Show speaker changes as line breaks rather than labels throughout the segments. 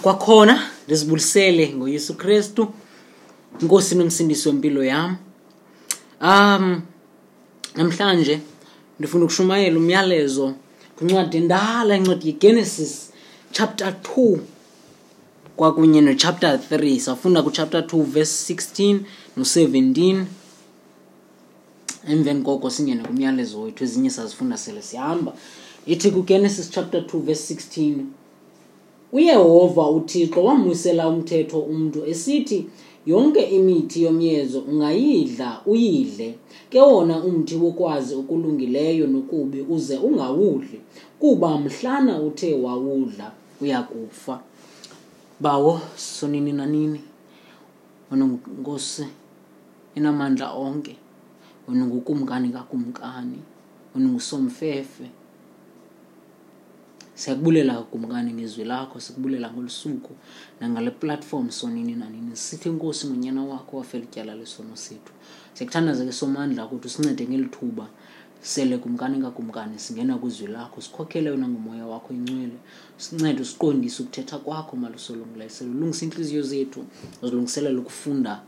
Kwakhona ndizibulisele ngoYesu Kristu, iNkosi nomsindisi wempilo yam. Namhlanje ndifuna ukushumayela umyalezo kwincwadi endala, incwadi yeGenesis chapter 2 kwakunye nochapter 3. Safunda kuchapter 2 verse 16 no-17. Emveni koko singene kumyalezo wethu, ezinye sazifunda sele sihamba. Ithi kuGenesis chapter 2 verse 16, uYehova uThixo wamwisela umthetho umntu esithi, yonke imithi yomyezo ungayidla uyidle, ke wona umthi wokwazi okulungileyo nokubi uze ungawudli, kuba mhlana uthe wawudla uyakufa. Bawo sonini nanini, wena Nkosi enamandla onke, wena ngukumkani kakumkani, wena ngusomfefe. Siyakubulela kumkani ngezwi lakho, sikubulela ngolusuku nangale platform sonini nanini. Sithi Nkosi ngonyana wakho wafela ityala lesono sethu. Siyakuthandaza ke Somandla ukuthi usincede ngeli thuba sele kumkani kakumkani singena kwizwi lakho, sikhokhele wena ngomoya wakho ingcwele, sincede usiqondise ukuthetha kwakho malusolungileyo, ulungise intliziyo zethu, uzilungiselele ukufunda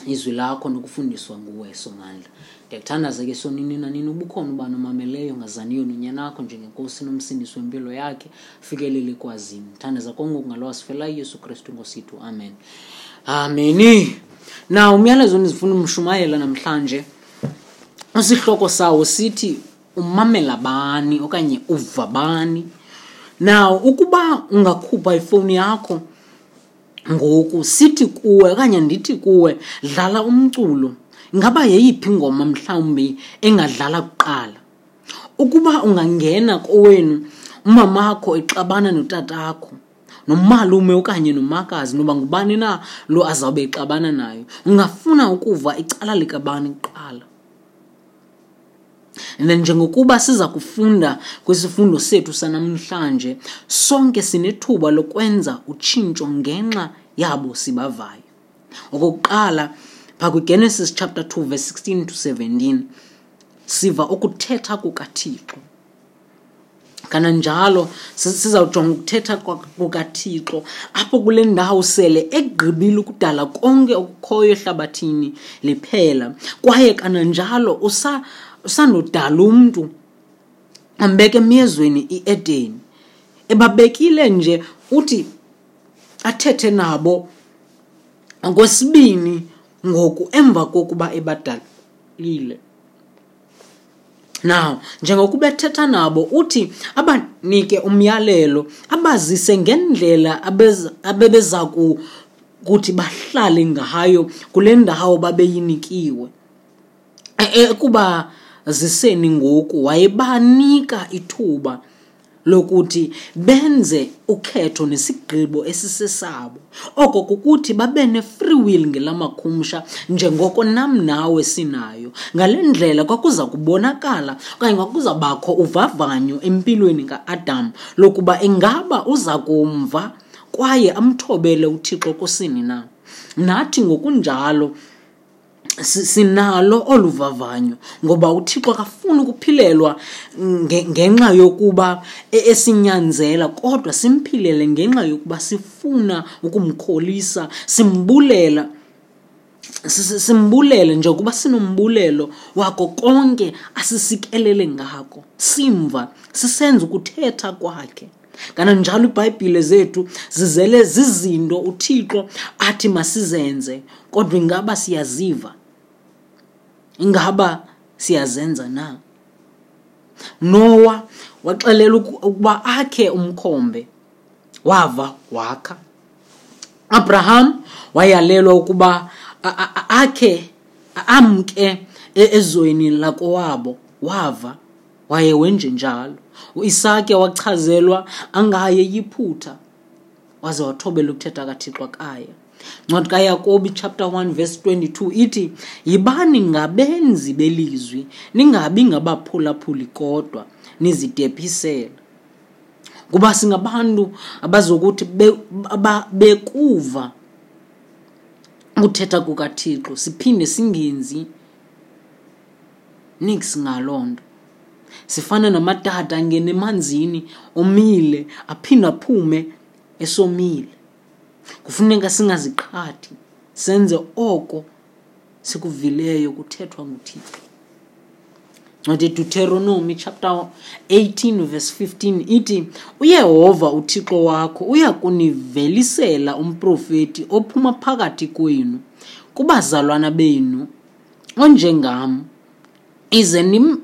izwi lakho nokufundiswa nguwe Somandla. Ndiyakuthandaza ke sonini nanini ubukhona ubani omameleyo ngazaniyo nonyana wakho njengenkosi nomsindisi wempilo yakhe, fikelele kwazini. Thandaza konke ngalo wasifela uYesu Kristu Nkosi yethu. Amen. Ameni. Na umyalezo endifuna umshumayela namhlanje, isihloko sawo sithi umamela bani okanye uva bani. Now ukuba ungakhupha ifowuni yakho ngoku, sithi kuwe okanye ndithi kuwe dlala umculo, ingaba yeyiphi ingoma mhlawumbi engadlala kuqala? Ukuba ungangena kowenu umamakho exabana notatakho, nomalume okanye nomakazi, noba ngubani na lo azawube exabana nayo, ungafuna ukuva icala likabani kuqala? And then njengokuba siza kufunda kwisifundo sethu sanamhlanje, sonke sinethuba lokwenza utshintsho ngenxa yabo sibavayo. Okokuqala, phaa kwiGenesis chapter 2 verse 16 to 17, siva ukuthetha kukaThixo. Kananjalo sizawujonga ukuthetha kukaThixo apho kule ndawo sele egqibile ukudala konke okukhoyo ehlabathini liphela, kwaye kananjalo usandodala umntu ambeke emyezweni iEdeni. Ebabekile nje uthi athethe nabo okwesibini ngoku emva kokuba ebadalile. Now, njengokuba ethetha nabo uthi abanike umyalelo, abazise ngendlela abebeza kuthi bahlale ngayo kule ndawo babeyinikiwe. Ekuba ziseni ngoku wayebanika ithuba lokuthi benze ukhetho nesigqibo esisesabo. Oko kukuthi babe ne-free will ngelamakhumsha njengoko nam nawe sinayo. Ngale ndlela kwakuza kubonakala okanye kwakuza bakho uvavanyo empilweni ka-Adam lokuba ingaba uza kumva kwaye amthobele uThixo kusini na. Nathi ngokunjalo sinalo olu vavanyo, ngoba uThixo akafuni ukuphilelwa ngenxa yokuba esinyanzela, kodwa simphilele ngenxa yokuba sifuna ukumkholisa, simbulele njengokuba sinombulelo wako konke asisikelele ngako, simva sisenza ukuthetha kwakhe. Kananjalo iBhayibhile zethu zizele zizinto uThixo athi masizenze, kodwa ingaba siyaziva? Ingaba siyazenza na? Noah waxelelwa ukuba akhe umkhombe, wava wakha. Abraham wayalelwa ukuba akhe amke ezweni lakowabo, wava waye wenje njalo. uIsake wachazelwa angaye eYiphutha, waze wathobela ukuthetha kaThixo akaya. Ncwadi kaYakobi chapter 1 verse 22 ithi, yibani ngabenzi belizwi, ningabi ngabaphulaphuli kodwa nizidephisela. Kuba singabantu abazokuthi bekuva ukuthetha kukaThixo siphinde singenzi niks ngaloo nto. Sifana namatata angena emanzini omile aphinde aphume esomile. Kufuneka singaziqhathi, senze oko sikuvileyo kuthethwa nguThixo. Ncwadi yeDuteronomi chapter 18 verse 15 ithi, uYehova uThixo wakho uya kunivelisela umprofeti ophuma phakathi kwenu, kubazalwana benu, onjengam, ize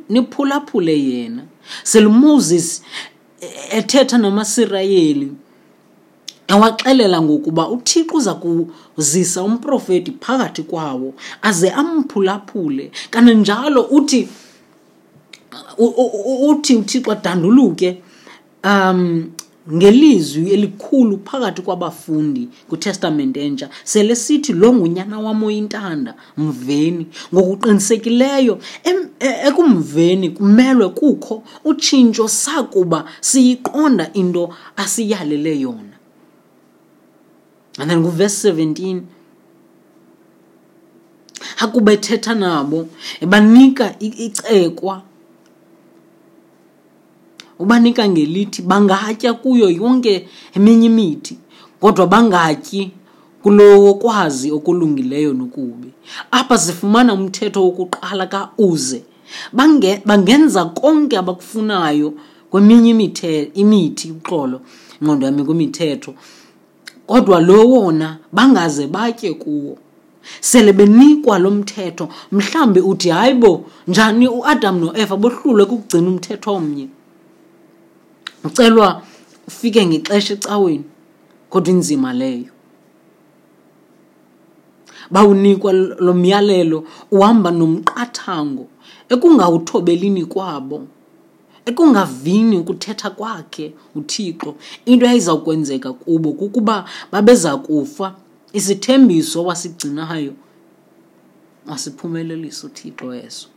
niphulaphule yena. Sele uMoses ethetha namaSirayeli, ewaxelela ngokuba uThixo uza kuzisa umprofeti phakathi kwawo aze amphulaphule. Kananjalo uthi uThixo adanduluke ngelizwi elikhulu phakathi kwabafundi kwiTestamente Entsha, sele sithi lo ngunyana wam oyintanda, mveni. Ngokuqinisekileyo ekumveni kumelwe kukho utshintsho sakuba siyiqonda into asiyalele yona. And then kuverse 17, akuba ethetha nabo ebanika icekwa, ubanika ngelithi bangatya kuyo yonke eminye imithi, kodwa bangatyi kulowo kwazi okulungileyo nokubi. Apha sifumana umthetho wokuqala kaUze. Bangenza konke abakufunayo kweminye imithi, uxolo, ingqondo yami kwimithetho, kodwa lo wona bangaze batye kuwo. Sele benikwa lo mthetho, mhlambi uthi hayi bo, njani uAdam noEva bohlulwe kukugcina umthetho omnye? Ucelwa ufike ngexesha ecaweni, kodwa inzima leyo. Bawunikwa lo myalelo uhamba nomqathango ekungawuthobelini kwabo, ekungavini ukuthetha kwakhe uThixo. Into eyayiza kwenzeka kubo kukuba babeza kufa. Isithembiso wasigcinayo wasiphumelelisa uThixo eso.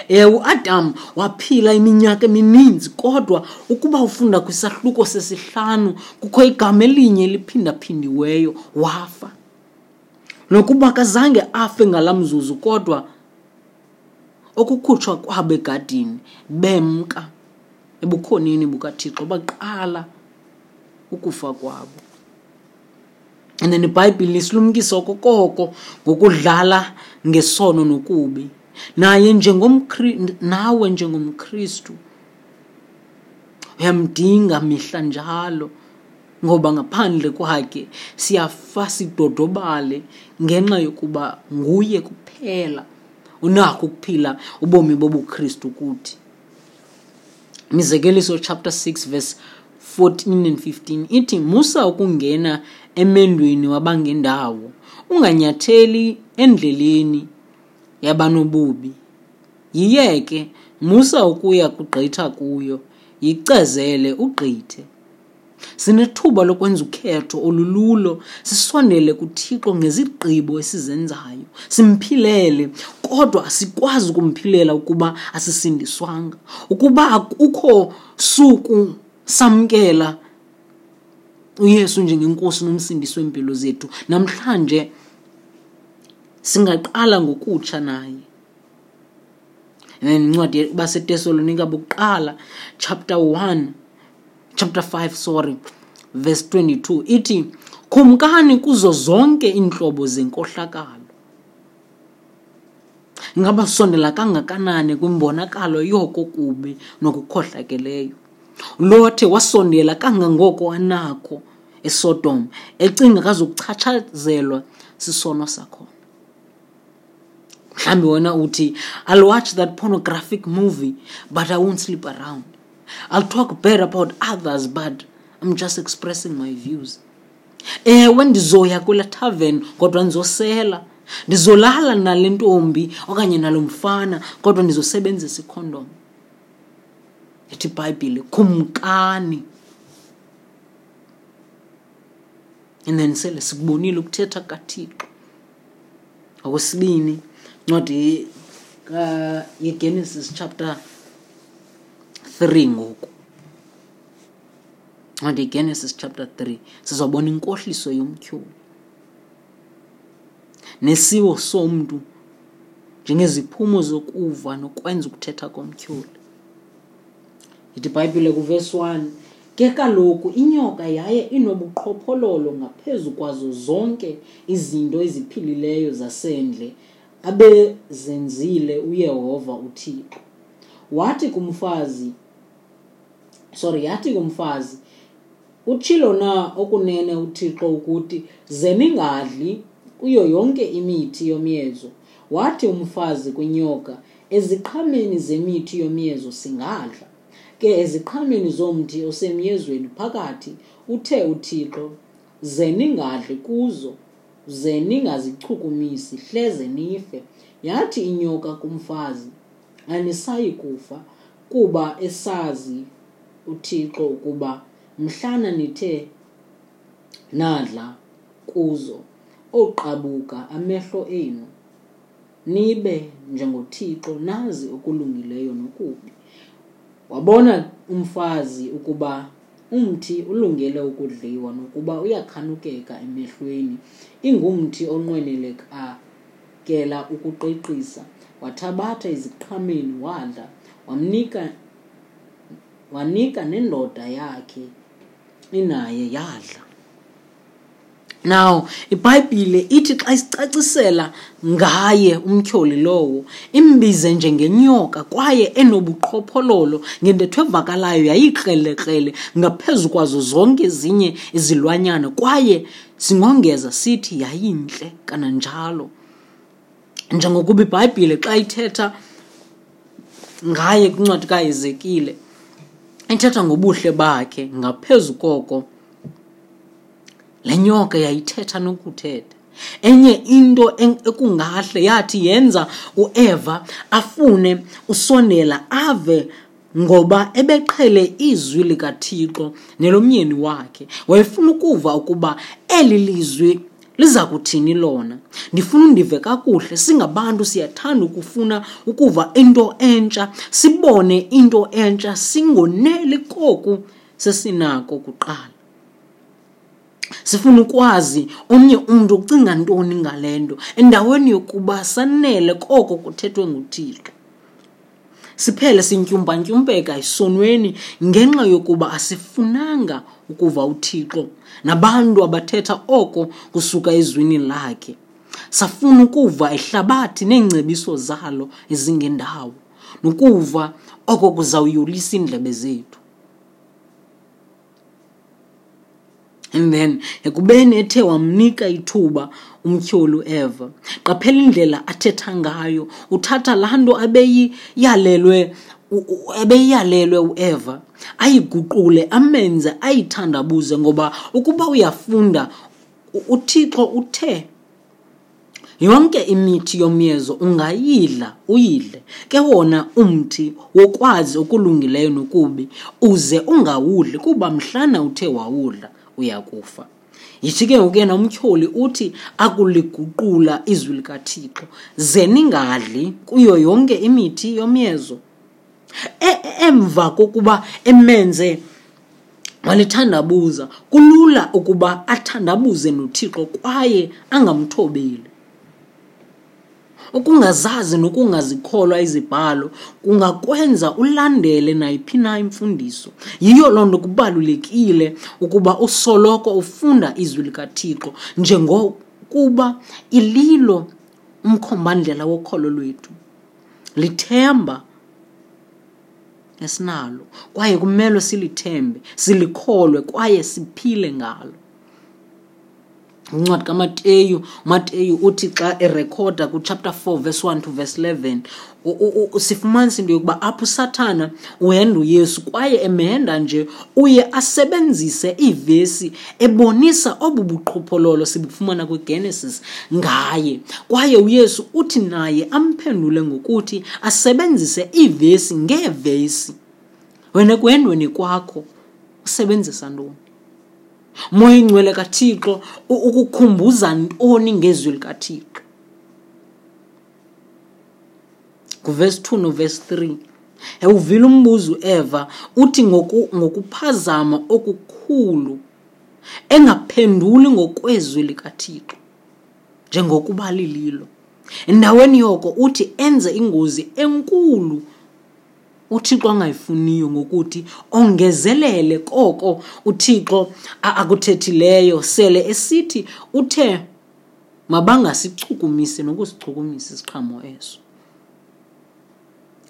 Ewe, uAdam waphila iminyaka emininzi, kodwa ukuba ufunda kwisahluko sesihlanu kukho igama elinye eliphindaphindiweyo, wafa. Nokuba akazange afe ngalaa mzuzu, kodwa okukhutshwa kwabo egadini bemka ebukhoneni bukaThixo, baqala ukufa kwabo. And then iBhayibhile isilumkisa okokoko ngokudlala ngesono nokubi. Naye nawe njengomKristu uyamdinga mihla njalo, ngoba ngaphandle kwakhe siyafa sidodobale, ngenxa yokuba nguye kuphela unakho ukuphila ubomi bobuKristu kuthi. Mizekeliso chapter 6 verse 14 and 15 ithi, musa ukungena emendweni wabangendawo, unganyatheli endleleni yabanobubi. Yiyeke, musa ukuya kugqitha kuyo, yicezele ugqithe. Sinethuba lokwenza ukhetho olululo, sisondele kuThixo ngezigqibo esizenzayo, simphilele, kodwa asikwazi ukumphilela ukuba asisindiswanga. Ukuba akukho suku samkela uYesu njengenkosi nomsindisi wempilo zethu, namhlanje singaqala ngokutsha naye. And then incwadi baseTesalonika bokuqala chapter 1, chapter 5, sorry, verse 22 ithi, khumkani kuzo zonke iintlobo zenkohlakalo. Ngaba sondela kangakanani kwimbonakalo yoko kubi nokukhohlakeleyo? Lothe wasondela kangangoko anakho eSodom, ecinga kazokuchatshazelwa sisono sakhona. Mhlawumbi wena uthi, I'll watch that pornographic movie, but I won't sleep around. I'll talk bad about others, but I'm just expressing my views. Ewe, ndizoya kula tavern, kodwa ndizosela. Ndizolala nale ntombi okanye nalo mfana, kodwa ndizosebenzisa ikhondom. Ithi iBhayibhile, khumkani. And then sele sikubonile ukuthetha kaThixo. Okwesibini, incwadi yeGenesis chapter 3 ngoku. Incwadi yeGenesis chapter 3, sizobona inkohliso yomtyholi nesiwo somntu njengeziphumo zokuva nokwenza ukuthetha komtyholi. Ithi iBhayibhile kuverse 1, Ke kaloku inyoka yaye inobuqhophololo ngaphezu kwazo zonke izinto eziphilileyo zasendle abezenzile uYehova uThixo. Wathi kumfazi, sorry, yathi kumfazi, Utshilo na okunene uThixo ukuthi, Ze ningadli kuyo yonke imithi yomyezo? Wathi umfazi kwinyoka, Eziqhameni zemithi yomyezo singadla. Ke eziqhameni zomthi osemyezweni phakathi, uthe uThixo, Ze ningadli kuzo, ze ningazichukumisi, hleze nife. Yathi inyoka kumfazi, Anisayi kufa, kuba esazi uThixo ukuba mhlana nithe nadla kuzo, oqabuka amehlo enu, nibe njengoThixo, nazi okulungileyo nokubi. Wabona umfazi ukuba umthi ulungele ukudliwa nokuba uyakhanukeka emehlweni, ingumthi onqwenelekakela ukuqiqisa. Wathabatha eziqhameni wadla, wamnika wanika nendoda yakhe inaye yadla. Now, iBhayibhile ithi xa isicacisela ngaye umtyholi lowo, imbize njengenyoka kwaye enobuqhophololo ngentetho evakalayo yayikrelekrele ngaphezu kwazo zonke ezinye izilwanyana kwaye singongeza sithi yayintle kananjalo. Njengokuba iBhayibhile xa ithetha ngaye kwincwadi kaHezekile ithetha ngobuhle bakhe ngaphezu koko Le nyoka yayithetha nokuthetha. Enye into ekungahle yathi yenza uEva afune usondela ave ngoba ebeqhele izwi likaThixo nelomyeni wakhe. Wayefuna ukuva ukuba eli lizwi liza kuthini lona. Ndifuna undive kakuhle, singabantu siyathanda ukufuna ukuva into entsha, sibone into entsha, singoneli koku sesinako kuqala. Sifuna ukwazi omnye umntu ucinga ntoni ngale nto endaweni yokuba sanele koko kuthethwe nguThixo. Siphele sintyumpantyumpeka esonweni ngenxa yokuba asifunanga ukuva uThixo nabantu abathetha oko kusuka ezwini lakhe. Safuna ukuva ihlabathi neengcebiso zalo ezingendawo nokuva oko kuzawuyolisa iindlebe zethu. And then ekubeni ethe wamnika ithuba umtyholi uEva, qaphela indlela athetha ngayo. Uthatha laa nto abeyiyalelwe ebeyiyalelwe uEva ayiguqule amenze ayithandabuze ngoba ukuba uyafunda uThixo uthe Yonke imithi yomyezo ungayidla uyidle, ke wona umthi wokwazi okulungileyo nokubi uze ungawudli, kuba mhlana uthe wawudla uya kufa. Yithi ke ngoku yena umtyholi uthi akuliguqula izwi likaThixo, ze ningadli kuyo yonke imithi yomyezo. E, emva kokuba emenze walithandabuza, kulula ukuba athandabuze noThixo kwaye angamthobeli. Ukungazazi nokungazikholwa izibhalo kungakwenza ulandele nayiphi na imfundiso. Yiyo loo nto kubalulekile ukuba usoloko ufunda izwi likaThixo njengokuba ililo umkhombandlela wokholo lwethu. Lithemba esinalo kwaye kumelwe silithembe, silikholwe kwaye siphile ngalo. Incwadi kaMateyu, uMateyu uthi xa erekhoda kuchapter 4 verse 1 to verse 11, sifumanisa into yokuba apho uSathana uhenda uYesu kwaye emhenda nje uye asebenzise iivesi ebonisa obu buqhophololo sibufumana kwiGenesis ngaye. Kwaye uYesu uthi naye amphendule ngokuthi asebenzise iivesi ngeevesi. Wena ekuhendweni kwakho usebenzisa ntoni? Moya ingcwele kaThixo ukukhumbuza ntoni ngezwi likaThixo? Nguvesi 2 novesi 3. Ewuvile umbuzo uEva uthi ngokuphazama okukhulu engaphenduli ngokwezwi likaThixo njengokuba lililo. Endaweni yoko uthi enze ingozi enkulu. uThixo angayifuniyo ngokuthi ongezelele koko uThixo akuthethileyo, sele esithi uthe mabangasichukumisi nokusichukumisa isiqhamo eso.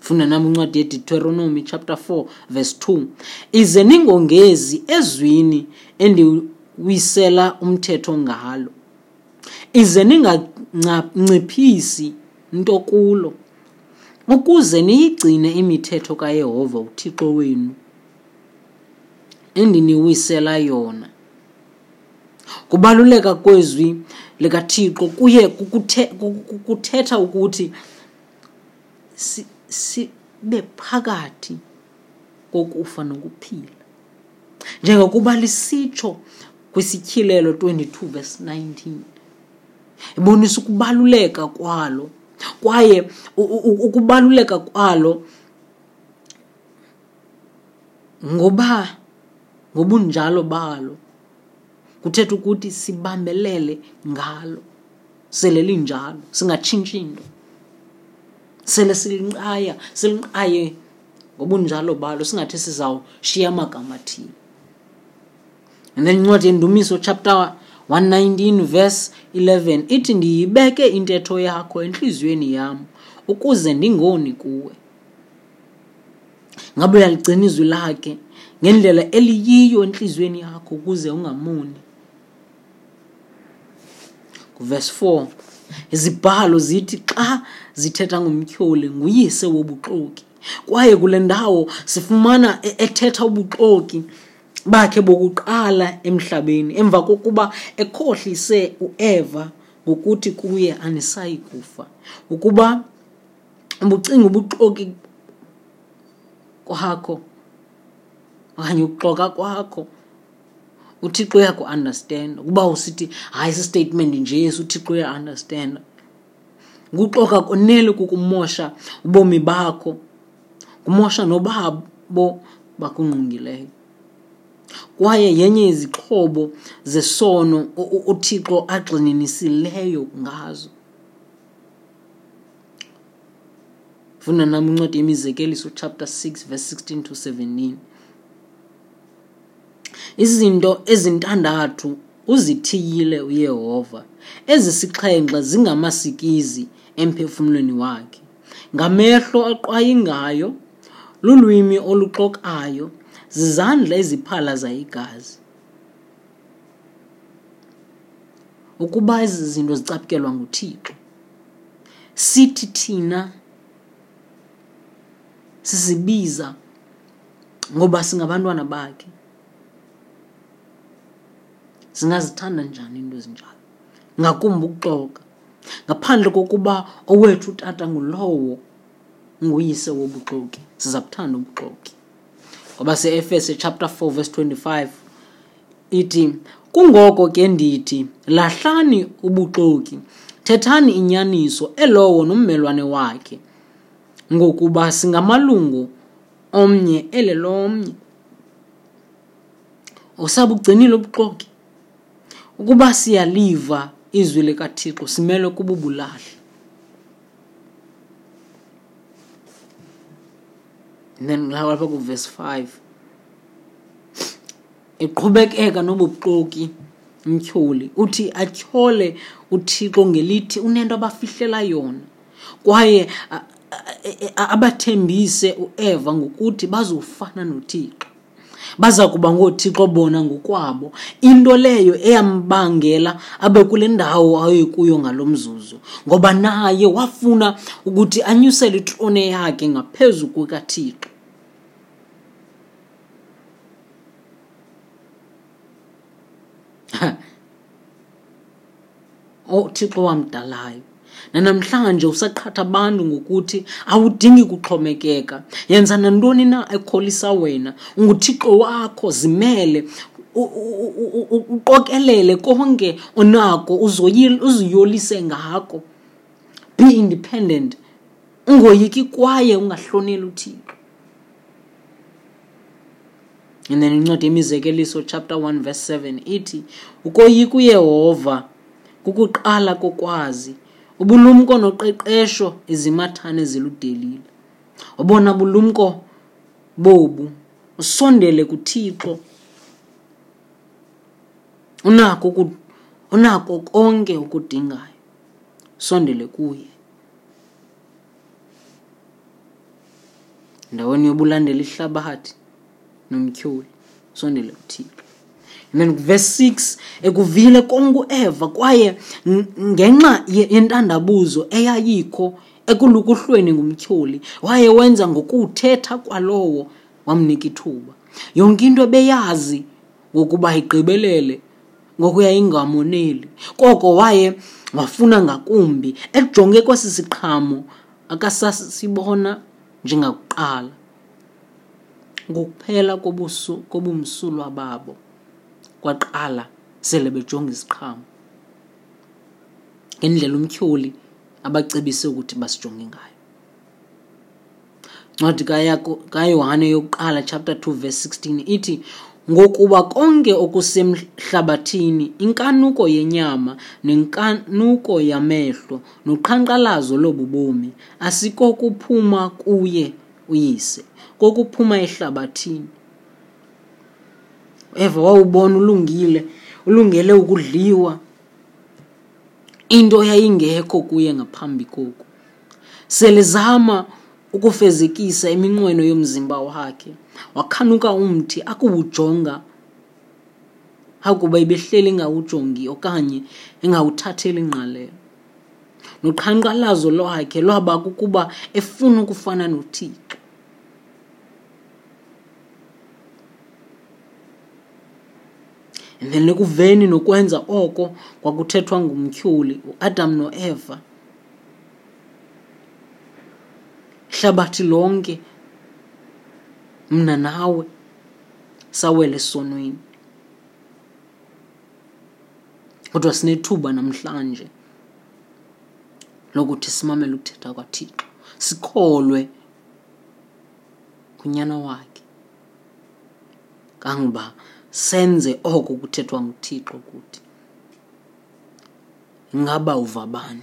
Funda nam incwadi yeDeuteronomy chapter 4 verse 2. Ize ningongezi ezwini endiwisela umthetho ngalo, ize ninganciphisi nto kulo, ukuze niyigcine imithetho kaYehova uThixo wenu endiniwisela yona. Kubaluleka kwezwi likaThixo kuye kuthetha ukuthi sibe phakathi kokufa nokuphila, njengokuba lisitsho kwiSityhilelo 22 verse 19. Ibonisa ukubaluleka kwalo, kwaye ukubaluleka kwalo ngoba ngobunjalo balo kuthetha ukuthi sibambelele ngalo sele linjalo, singatshintshi into, sele silinqaya, silinqaye ngobunjalo balo, singathi sizawushiya amagama athile. And then incwadi yeNdumiso chapter 119 verse 11 ithi, ndiyibeke intetho yakho entliziyweni yam ukuze ndingoni kuwe. Ngabe uyaligcina izwi lakhe ngendlela eliyiyo entliziyweni yakho ukuze ungamoni? Verse 4, izibhalo zithi xa zithetha ngomtyholi nguyise wobuxoki, kwaye kule ndawo sifumana ethetha ubuxoki bakhe bokuqala emhlabeni emva kokuba ekhohlise uEva ngokuthi kuye anisayi kufa. Ukuba ubucinga ubuxoki kwakho okanye ukuxoka kwakho, uThixo uyaku-understand. Ukuba usithi hayi si-statement nje esi, uThixo uya-understand. Ukuxoka konele kukumosha ubomi bakho, kumosha nobabo bakungqongileyo. Kwaye yenye izixhobo zesono uThixo agxininisileyo ngazo. Funda nam incwadi yeMizekeliso chapter 6 verse 16 to 17. Izinto ezintandathu uzithiyile uYehova, ezisixhenxe zingamasikizi emphefumlweni wakhe: ngamehlo aqwayingayo, lulwimi oluxokayo, zizandla eziphalaza igazi. Ukuba ezi zinto zicaphukelwa nguThixo, sithi thina sizibiza ngoba singabantwana bakhe, singazithanda njani into ezinjalo? Ngakumbi ukuxoka, ngaphandle kokuba owethu utata ngulowo nguyise wobuxoki, siza kuthanda ubuxoki. Ngoba se-Efese chapter 4 verse 25 ithi, kungoko ke ndithi, lahlani ubuxoki, thethani inyaniso elowo nommelwane wakhe, ngokuba singamalungu omnye elelomnye. Usabugcinile ubuxoki? Ukuba siyaliva izwi likaThixo, simelwe kububulahla. And then lapha ku-verse 5 iqhubekeka nobuxoki umtyholi, uthi atyhole uThixo ngelithi unento abafihlela yona, kwaye abathembise uEva ngokuthi bazofana noThixo, baza kuba ngooThixo bona ngokwabo, into leyo eyambangela abe kule ndawo ayekuyo ngalo mzuzu, ngoba naye wafuna ukuthi anyusele itrone yakhe ngaphezu kukaThixo. UThixo wamdalayo nanamhlanje usaqhatha abantu ngokuthi awudingi kuxhomekeka, yenza nantoni na ekholisa wena, unguThixo wakho, zimele, uqokelele konke onako, uziyolise ngako. Be independent, ungoyiki kwaye ungahloneli uThixo. And then incwadi yeMizekeliso chapter 1 verse 7 ithi, ukoyika uYehova kukuqala kokwazi, ubulumko noqeqesho izimathane ziludelile. Obona bulumko Bobu usondele kuThixo. Unako unako konke okudingayo. Sondele kuye. Ndaweni yobulandela ihlabathi nomtyholi, sondele kuThixo. And then verse 6, ekuvile konke uEva kwaye ngenxa yentandabuzo eyayikho ekulukuhlweni ngumtyholi, waye wenza ngokuthetha kwalowo wamnika ithuba. Yonke into ebeyazi ngokuba igqibelele ngokuya ingamoneli, koko waye wafuna ngakumbi, ejonge kwesi siqhamo akasasibona njengakuqala. Ngokuphela kobumsulwa babo kwaqala sele bejonga isiqhamo ngendlela umtyholi abacebise ukuthi basijonge ngayo. Ncwadi kaYohane yokuqala chapter 2 verse 16 ithi, ngokuba konke okusemhlabathini, inkanuko yenyama nenkanuko yamehlo noqhankqalazo lobu bomi, asikokuphuma kuye uYise, kokuphuma ehlabathini. Eva wawubona ulungile, ulungele ukudliwa, into yayingekho kuye ngaphambi koku. Selezama ukufezekisa iminqweno yomzimba wakhe, wakhanuka umthi akuwujonga, akuba ebehleli engawujongi okanye engawuthatheli ingqalelo. Noqhankqalazo lwakhe lwaba kukuba efuna ukufana noThixo. And then ekuveni nokwenza oko kwakuthethwa ngumtyholi, uAdam noEva, ihlabathi lonke, mna nawe, sawele esonweni. Kodwa sinethuba namhlanje lokuthi simamele ukuthetha kwaThixo, sikholwe kuNyana wakhe, kangoba senze oko kuthethwa nguThixo kuthi. Ingaba uva bani?